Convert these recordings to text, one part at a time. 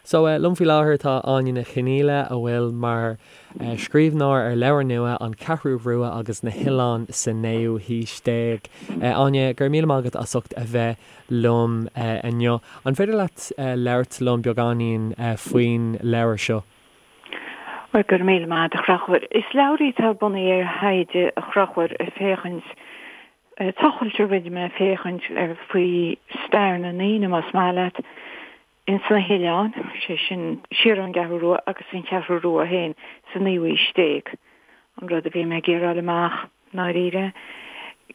So, liom faoi láthair tá Áine Ní Chonghaile, a bhfuil mar scríbhneoir ar leabhar nua, An Cheathrú Rua agus na hOileáin sa Naoú hAois Déag. Áine, go raibh míle maith agat as ucht a bheith liom inniu. An féidir leat labhairt liom beagáinín faoin leabhar seo? Bhuel, go raibh míle maith agat, a Chonchúir. Is leabhar í atá bunaithe ar thaighde, a Chonchúir, ag féachaint, tochailt a rinne mé féachaint ar faoi stair na ndaoine, más maith leat, ins na hoileáin, sé sin, siar ón gCeathrú Rua agus an Cheathrú Rua féin sa naoú haois déag. An rud a bhí mé ag iarraidh a fháil amach, ndáiríre,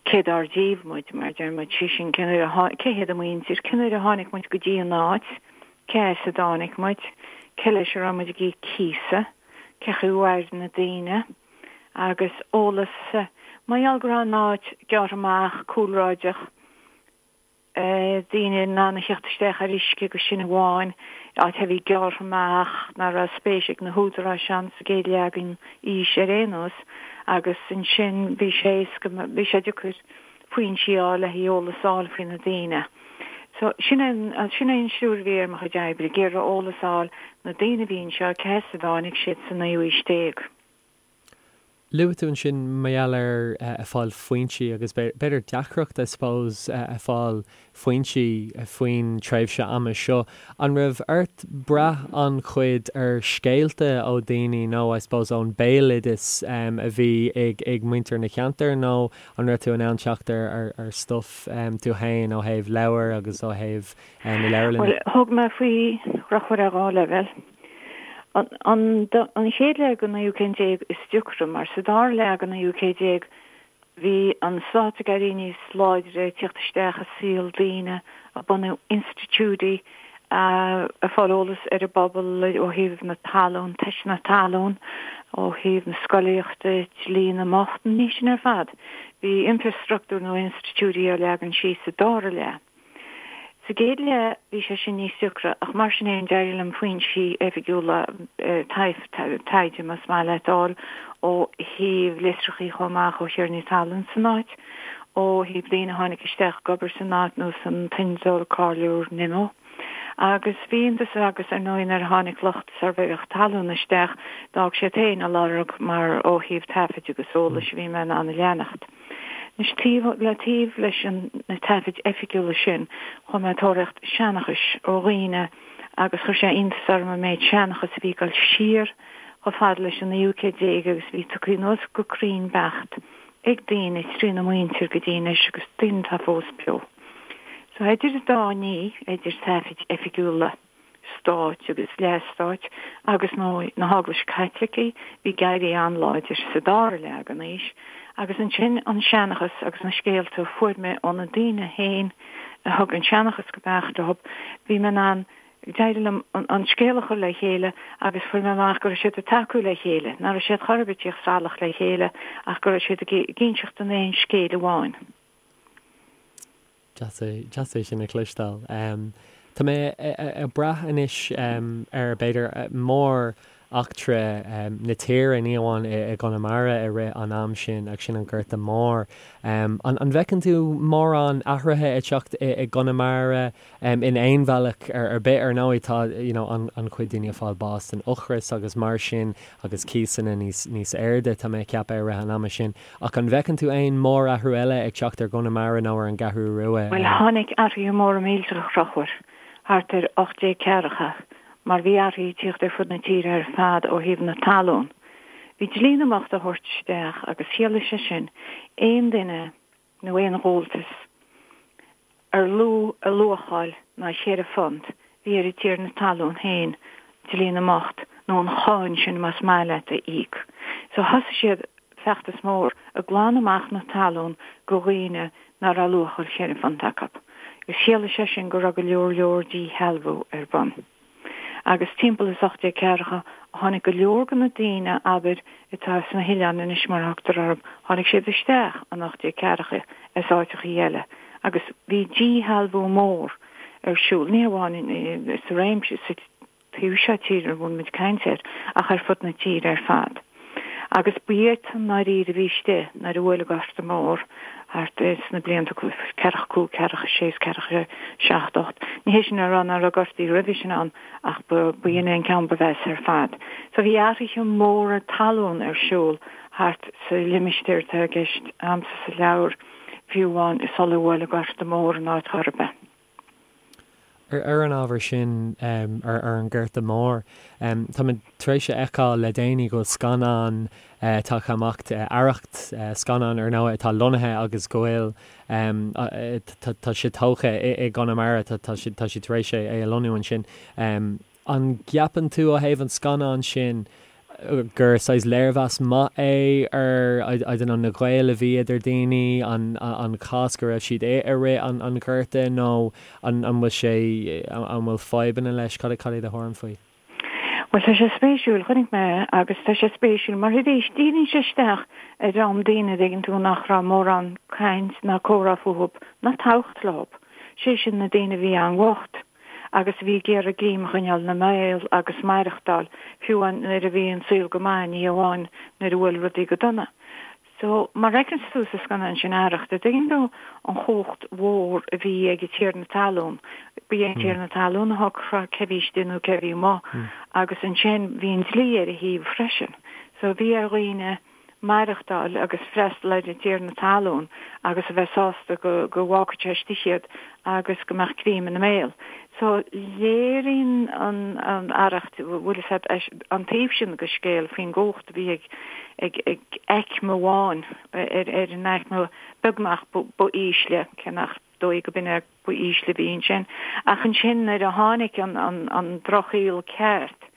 cé dár díobh muid, mar a deir muid, sé sin, cén uair a, cé hiad an mhuintir, cén uair a tháinig muid go dtí an áit, cé as a dtáinig muid, cé leis a raibh muid ag íoc cíosa, cé chaoi a mhair na daoine, agus eolas, mar gheall go raibh an áit gearrtha amach, cúlráideach, daoine in ann a theacht isteach ar uisce agus sin amháin, áit a bhí gearrtha amach, nach raibh spéis ag na húdaráis ann sa gcéad leath den aois ar aon nós agus ansin bhí sé éasca, bhí sé deacair foinsí a fháil le haghaidh eolas a fháil faoi na daoine. So sin é an, sin é an stiúir a bhí ar mo chuid oibre, ag iarraidh eolas a fháil, na daoine a bhí anseo, cé as a dtáinig siad sa naoú haois déag. Luaigh tú ansin mar gheall ar ag fáil foinsí agus b'fhéidir deacracht I suppose ag fáil foinsí faoin tréimhse ama seo. An raibh ort brath an-chuid ar scéalta ó daoine nó I suppose ón béaloideas a bhí ag ag muintir na cheantar nó an raibh tú in ann teacht ar ar stuff tú féin ó thaobh leabhar agus ó thaobh na leabharlainne? Bhuel, thug mé faoi a Chonchúir ar dhá leibhéal. An chéad leath den naoú céad déag is deacra, mar sa dara leath den naoú céad déag bhí an stát ag éirí níos láidre, ag tíocht isteach i saol daoine, ag bunú institiúidí, ag fáil eolas ar an bpobal ó thaobh na talún, teisteanna talún, ó thaobh na scolaíochta, dlí na mbocht, na nithe sin ar fad. Bhí infreastruchtúr nó institiúidí á leagan síos sa dara leath. Sa gcéad leath bhí sé sin níos deacra ach mar sin fhéin d'éirigh liom foinsí oifigiúla taighde más maith leat a fháil ó thaobh litreachaí chomh maith ó thiarnaí talún san áit, ó thaobh daoine a tháinig isteach ag obair san áit nós an t-innealtóir cáiliúil Nimmo. Agus bhí iontas agus ar ndóigh nuair a tháinig lucht suirbhéireacht talún isteach d'fhág siad féin a lorg mar ó thaobh taifid agus eolais a bhí mé in ann a leanacht. Anois, taobh le taobh leis na taifid oifigiúla sin, chuaigh mé ag tóraíocht seanchais ó dhaoine agus chuir sé iontas orm an méid seanchas a bhí ag dul siar chomh fada leis an naoú céad déag agus a bhí tugtha anuas go cruinn beacht ag daoine trína muintir go dtí anois agus daoine atá fós beo. So idir an dá ní, idir taifid oifigiúla, stáit agus leathstáit agus nó na hEaglaise Caitlicí, bhí ag éirí an-láidir sa dara leath den aois, agus ansin an seanchas agus na scéalta a fuair mé ó na daoine féin a thug an seanchas go beacht leo, bhí mé in ann, d'éirigh liom an scéal a chur le chéile agus fuair mé amach go raibh siad ag tacú le chéile, nach raibh siad chor ar bith ag tíocht salach le chéile ach go raibh siad ag inseacht an aon scéil amháin. Deas é sin a chloisteáil. Tá mé ag brath anois ar, b'fhéidir, mór-eachtra na tíre, ní amháin i gConamara i rith an am sin, ach sin an Gorta Mór. An bhfeiceann tú mórán athruithe ag teacht i gConamara In aon bhealach ar bith, ar ndóigh, tá you know an-chuid daoine ag fáil bás den ocras agus mar sin agus cíosanna níos níos airde, tá mé ag ceapadh, i rith an ama sin. Ach an bhfeiceann tú aon mórathrú eile ag teacht ar gConamara nó ar an gCeathrú Rua? Bhuel, tháinig athruithe móra millteacha, a Chonchúir, thart ar 1840, mar bhí athruithe ag tíocht ar fud na tíre ar fad ó thaobh na talún. Bhí dlí na mbocht á thabhairt isteach agus chiallaigh sé sin aon duine nó aon ghabháltas ar lú a luacháil ná cheithre phunt, bhí ar an tiarna talún féin dlí na mbocht, nó an cháin sin más maith leat, a íoc. So thosaigh siad feachtas mór ag glanadh amach na talún go dhaoine ná raibh luacháil cheithre phunt acu. Agus chiallaigh sé sin go raibh go leor leor díshealbhú ar bun. Agus timpeall is 1840 tháinig go leor de na daoine, abair, atá sna hoileáin anois mar a thugtar orthu, tháinig siad isteach in 1840 as áiteachaí eile agus bhí díshealbhú mór ar siúl, ní hamháin sa réimse, sa taobh seo tíre a bhfuil muid ag caint air, ach ar fud na tíre ar fad. Agus ba iadsan i ndáiríre a bhí istigh nuair a bhuail an Gorta Mór. Thart sna blianta ceathracha cúig, ceathracha sé is ceathracha seacht, ocht. Ní hé sin a rá nach raibh gortaí roimhe sin ann ach ba in é an ceann ba mheasa ar fad. So bhí athruithe móra talún ar siúl thart sa limistéar atá i gceist a'msa sa leabhar, fiú amháin sular bhuail an Gorta Mór an áit chor ar bith. Ar an ábhar sin, ar an Ghorta Mór, táimid tar éis a fheiceáil le déanaí go bhfuil scannán tagtha amach, Arracht, scannán ar ndóigh atá lonnaithe agus go bhfuil, tá sé tógtha i gConamara, tá siad tar éis é a lonnú ansin. An gceapann tú ó thaobh an scannáin sin gur saghas léirmheas maith é ar, I don't know, na gaoil a bhí idir daoine, an an cás go raibh siad i i rith an an Ghorta nó an an bhfuil sé, an bhfuil fadhbanna leis? Cad cad é do thuairim faoi? Bhuel, tá sé spéisiúil, chonaic mé é agus tá sé spéisiúil mar arís díríonn sé isteach ar dhream daoine a dtuigeann tú nach raibh mórán caint ná comhrá fúthub ná tábhacht leob, sé sin na daoine a bhí an-bhocht. agus a bhí ag iarraidh greim a choinneáil ina mbéal agus maireachtáil, fiú amháin nuair a bhí an saol go maith, ní amháin nuair a bhuail rudaí go dona. So, mar a fheiceanns tú sa scannán sin Arracht, a dtuigeann tú an chumhacht mhór a bhí ag an tiarna talún. Ba é an tiarna talún a shocraigh cé bhí istigh nó cé bhí amuigh agus ansin bhí an dlí ar a thaobh freisin. So, bhí ar dhaoine maireachtáil agus freastal ar an tiarna talún agus a bheith sásta go go bhfágfadh sé istigh iad agus go mbeadh greim ina mbéal. So léiríonn an an Arracht, bhfuil fhios a'd, an taobh sin de scéal faoin gcumhacht a bhí ag ag ag aicme amháin ar ar an aicme beagnach ba ísle, cé nach dóigh go b'in é ba ísle a bhí ansin. Ach ansin nuair a tháinig an an an drochshaol ceart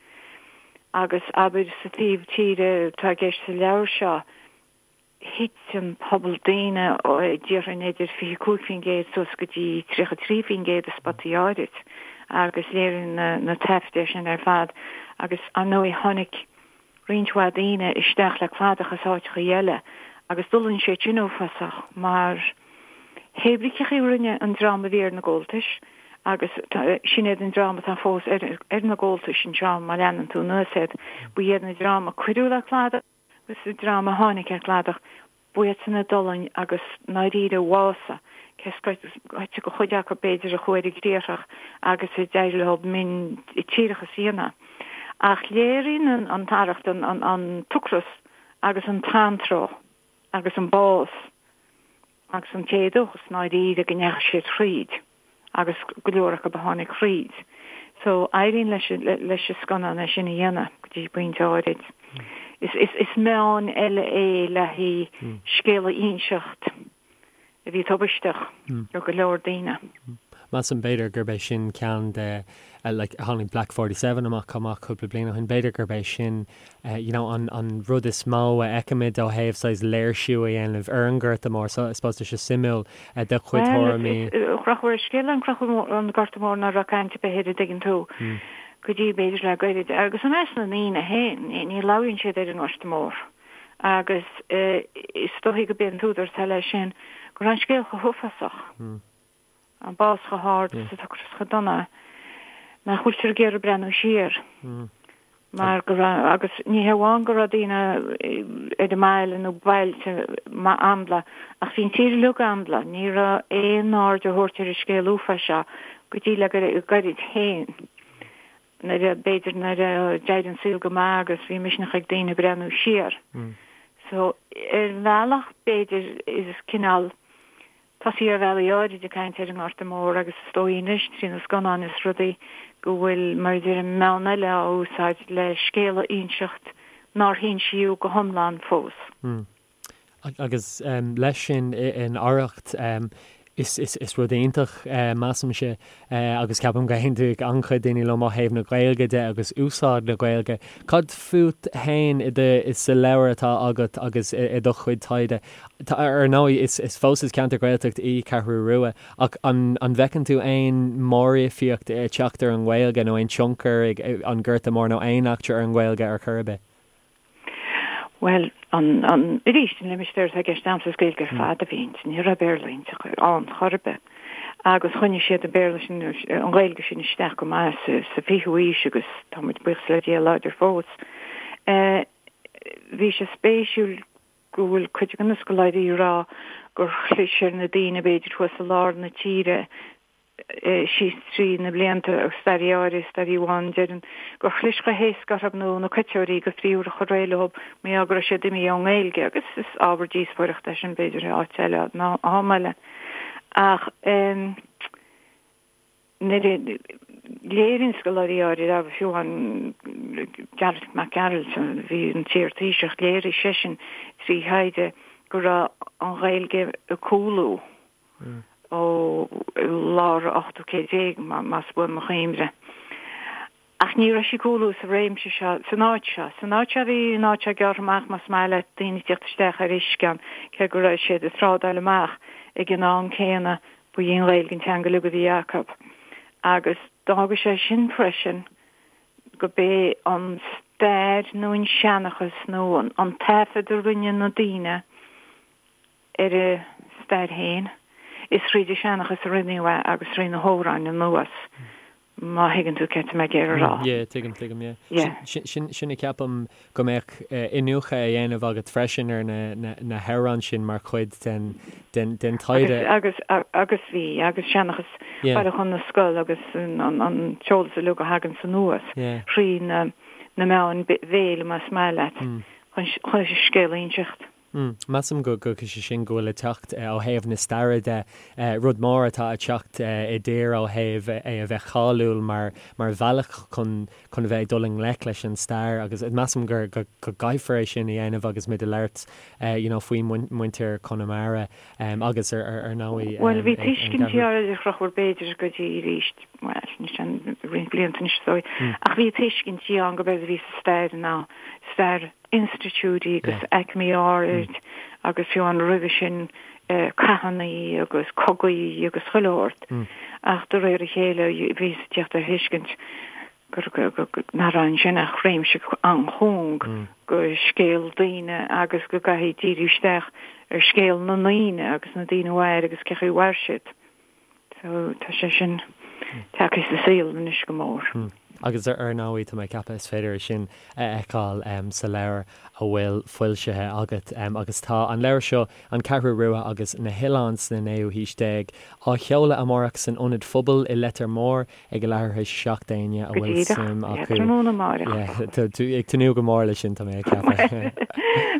agus abair sa taobh tíre atá i gceist sa leabhar seo, thit an pobal daoine ó déarfainn idir 25% suas go dtí 33% i spotaí áirid agus léiríonn na na taifid é sin ar fad agus ar ndóigh tháinig roinnt mhaith daoine isteach le cladach as áiteachaí eile agus d'fhulaing siad sin uafásach mar Heibríceachaí a rinne an dream a bhí ar na gabháltais agus sin iad an dream atá fós ar na gabháltais anseo má leanann tú anuas iad. Ba iad na dream a cuireadh le cladach agus an dream a tháinig ar cladach, ba iadsan a d'fhulaing agus ndáiríre bhásaigh, cé scoite de chuid acu b'fhéidir a chuaigh ar an gcriathrach agus a d'éirigh leo miontíreachas a dhéanamh. Ach léiríonn an tArracht an t-ocras agus an t-antró agus an bás agus an t-éadóchas ndáiríre go ndeachaigh siad thríd agus go leor acu a tháinig thríd. So éiríonn leis leis an scannán é sin a dhéanamh go dtí pointe áirid. Is is is meán eile é le haghaidh scéal a inseacht a bhí tubaisteach do go leor daoine. Measaim, b'fhéidir, gurb é sin ceann de, like, tháinig Black 47 amach chomh maith cúpla bliain ó shin, b'fhéidir gurb é sin, you know, an, an rud is mó a fheicimid ó thaobh saghas léirsiú a dhéanamh ar an Ghorta Mór. So, I suppose tá sé suimiúil do chuid tuairimí. Bhuel, is drochuair scéal an an Gorta Mór ná raibh caint ar bith air, an dtuigeann tú, go dtí b'fhéidir le goirid. Agus i measc na ndaoine féin, ní labhraíonn siad ar an nGorta Mór. Agus is dóichí go b'é an t-údar atá leis sin go raibh an scéal chomh huafásach, an bás chomh hard is an t-ocras chomh dona, nach bhfuiltear ag iarraidh breathnú siar. Mar go raibh, agus ní hé amháin go raibh daoine ar an mbaile nó bailte ambla, ach bhí an tír uilig ambla, ní raibh aon aird á thabhairt ar an scéal uafáis seo go dtí le goirid féin. nuair a, b'fhéidir nuair a d'éirigh an saol go maith agus bhí misneach ag daoine breathnú siar. So, ar bhealach, b'fhéidir, is cineál tosaí ar bhealaí áirid ag caint ar an nGorta Mór agus is dóigh anois trí na scannáin is rudaí go bhfuil, mar a deirim, meán eile á úsáid le scéal a inseacht nár hinsíodh go hiomlán fós. Agus leis sin in Arracht, is rud iontach, measaimse, agus ceapaim go n-aontóidh an-chuid daoine liom ó thaobh na Gaeilge de agus úsáid na Gaeilge. Cad fút féin i do, sa leabhar atá agat agus i do chuid taighde? Ar ndóigh, is fós is ceantar Gaeltacht í Ceathrú Rua, ach an bhfeiceann tú aon mhóréifeacht ag teacht ar an nGaeilge nó aon tionchar ag an Gorta Mór nó aon eachtra ar an nGaeilge ar chor ar bith? Bhuel, an, an, arís, an limistéar atá i gceist a'msa is Gaeilge ar fad a bhí inti, ní raibh Béarla inti ann chor ar bith. Agus choinnigh siad an Béarla sin, an Ghaeilge sin isteach go maith sa, sa fichiú aois agus tá muid, buíochas le Dia, láidir fós. Eh, bhí sé spéisiúil go bhfuil cuid de na scoláirí ag rá. gur chlis ar na daoine b'fhéidir thuas i lár na tíre síos trí na blianta agus staraí áirithe, staraí amháin deireann gur chlis chomh héasca orthu nó na coiteoirí go phríomh a chur réidh leo mar gheall go raibh siad imithe ón nGaeilge agus is ábhar díospóireachta é sin b'fhéidir i áit eile nó am eile ach nuair a léiríonn scoláirí áirithe agus fiú amháin Gearailt Mac Gearailt a bhí ina iar-Thaoiseach léirigh seisean trí thaighde go raibh an Ghaeilge ag cúlú ó lár an ochtú céad déag, más buan mo chuimhne. Ach ní raibh sí ag cúlú sa réimse seo, san áit seo. San áit seo bhí an áit seo gearrtha amach, más maith leat, daoine ag tíocht isteach ar uisce ann, cé go raibh siad ag trádáil amach ag an am céanna, ba í an Ghaeilge an teanga uilig a bhí acu. Agus d'fhága sé sin freisin go b'é an stair nó an seanchas nó an taifead a rinne na daoine ar a stair féin, is thríd an seanchas a rinneadh é agus trí na hamhráin anuas, má thuigeann tú céard tá mé ag iarraidh a rá. Yeah, tuigim, tuigim, yeah. Yeah. Sin, sin a ceapaim go mbeadh iniúchadh á dhéanamh agat freisin ar na, na, na hamhráin sin mar chuid den, den, den taighde. Agus, agus, agus bhí, agus seanchas yeah. Bailiúchán na Scol agus an, an, an t-eolas uilig a thagann anuas yeah. thrí na, na meáin bhéil, más maith leat, mm. chun, chun scéal a inseacht. Measaim go go sé sin go bhfuil ag teacht ó thaobh na staire de, rud mór atá ag teacht i dtír ó thaobh é a bheith cáiliúil mar mar bhealach chun chun a bheith ag dul i ngleic leis an stair agus measaim gur go go gcaithfear é sin a dhéanamh agus muid ag labhairt you know faoi muintir Chonamara agus ar ar ar ndóigh Bhuel bhí tuiscintí áirithe a Chonchúir b'fhéidir go dtí arís, bhuel anois an roinnt blianta anois is dóigh, ach bhí tuiscintí ann go b'éard a bhí sa stair ná stair institiúidí agus aicmí áirid agus fiú amháin roimhe sin cathanna agus cogaí agus chuile shórt. Ach de réir a chéile bhíothas ag tíocht ar thuiscint gur nach raibh ansin ach réimse an-chúng go scéal daoine agus go gcaithfí díriú isteach ar scéal na ndaoine agus na daoine a mhair agus cé chaoi a mhair siad. So tá sé sin tagtha sa saol anois go mór. Agus ar ndóigh, tá mé ag ceapadh is féidir é sin a fheiceáil sa leabhar a bhfuil foilsithe agat. Agus tá an leabhar seo, An Cheathrú Rua agus na hOileáin sna Naoú hAois Déag, á sheoladh amárach san Ionad Phobail i Leitir Móir ag a leathuair tar éis 7 d'éinne a Go bhfuil díreach, suim yeah, acu. tráthnóna amárach. Yeah, tá tú ag tnúth go mór leis sin, tá mé ag ceapadh.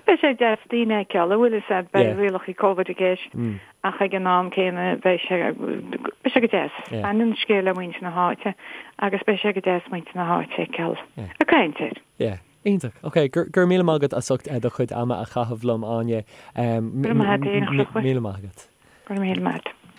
Beidh sé deas daoine a fheiceáil, an bhfuil fhios a'd, beidh Yeah. rialacha Covid i gceist. Ach ag an am céanna beidh sé, beidh sé go deas. Baineann an scéal le muintir na háite agus beidh sé go deas muintir na háite a fheiceáil ag caint air. Yeah. Iontach. Ok, go raibh míle maith agat as ucht do chuid ama a chaitheamh liom, Áine. Go raibh maith agat, Míle maith agat. Go raibh míle maith agat.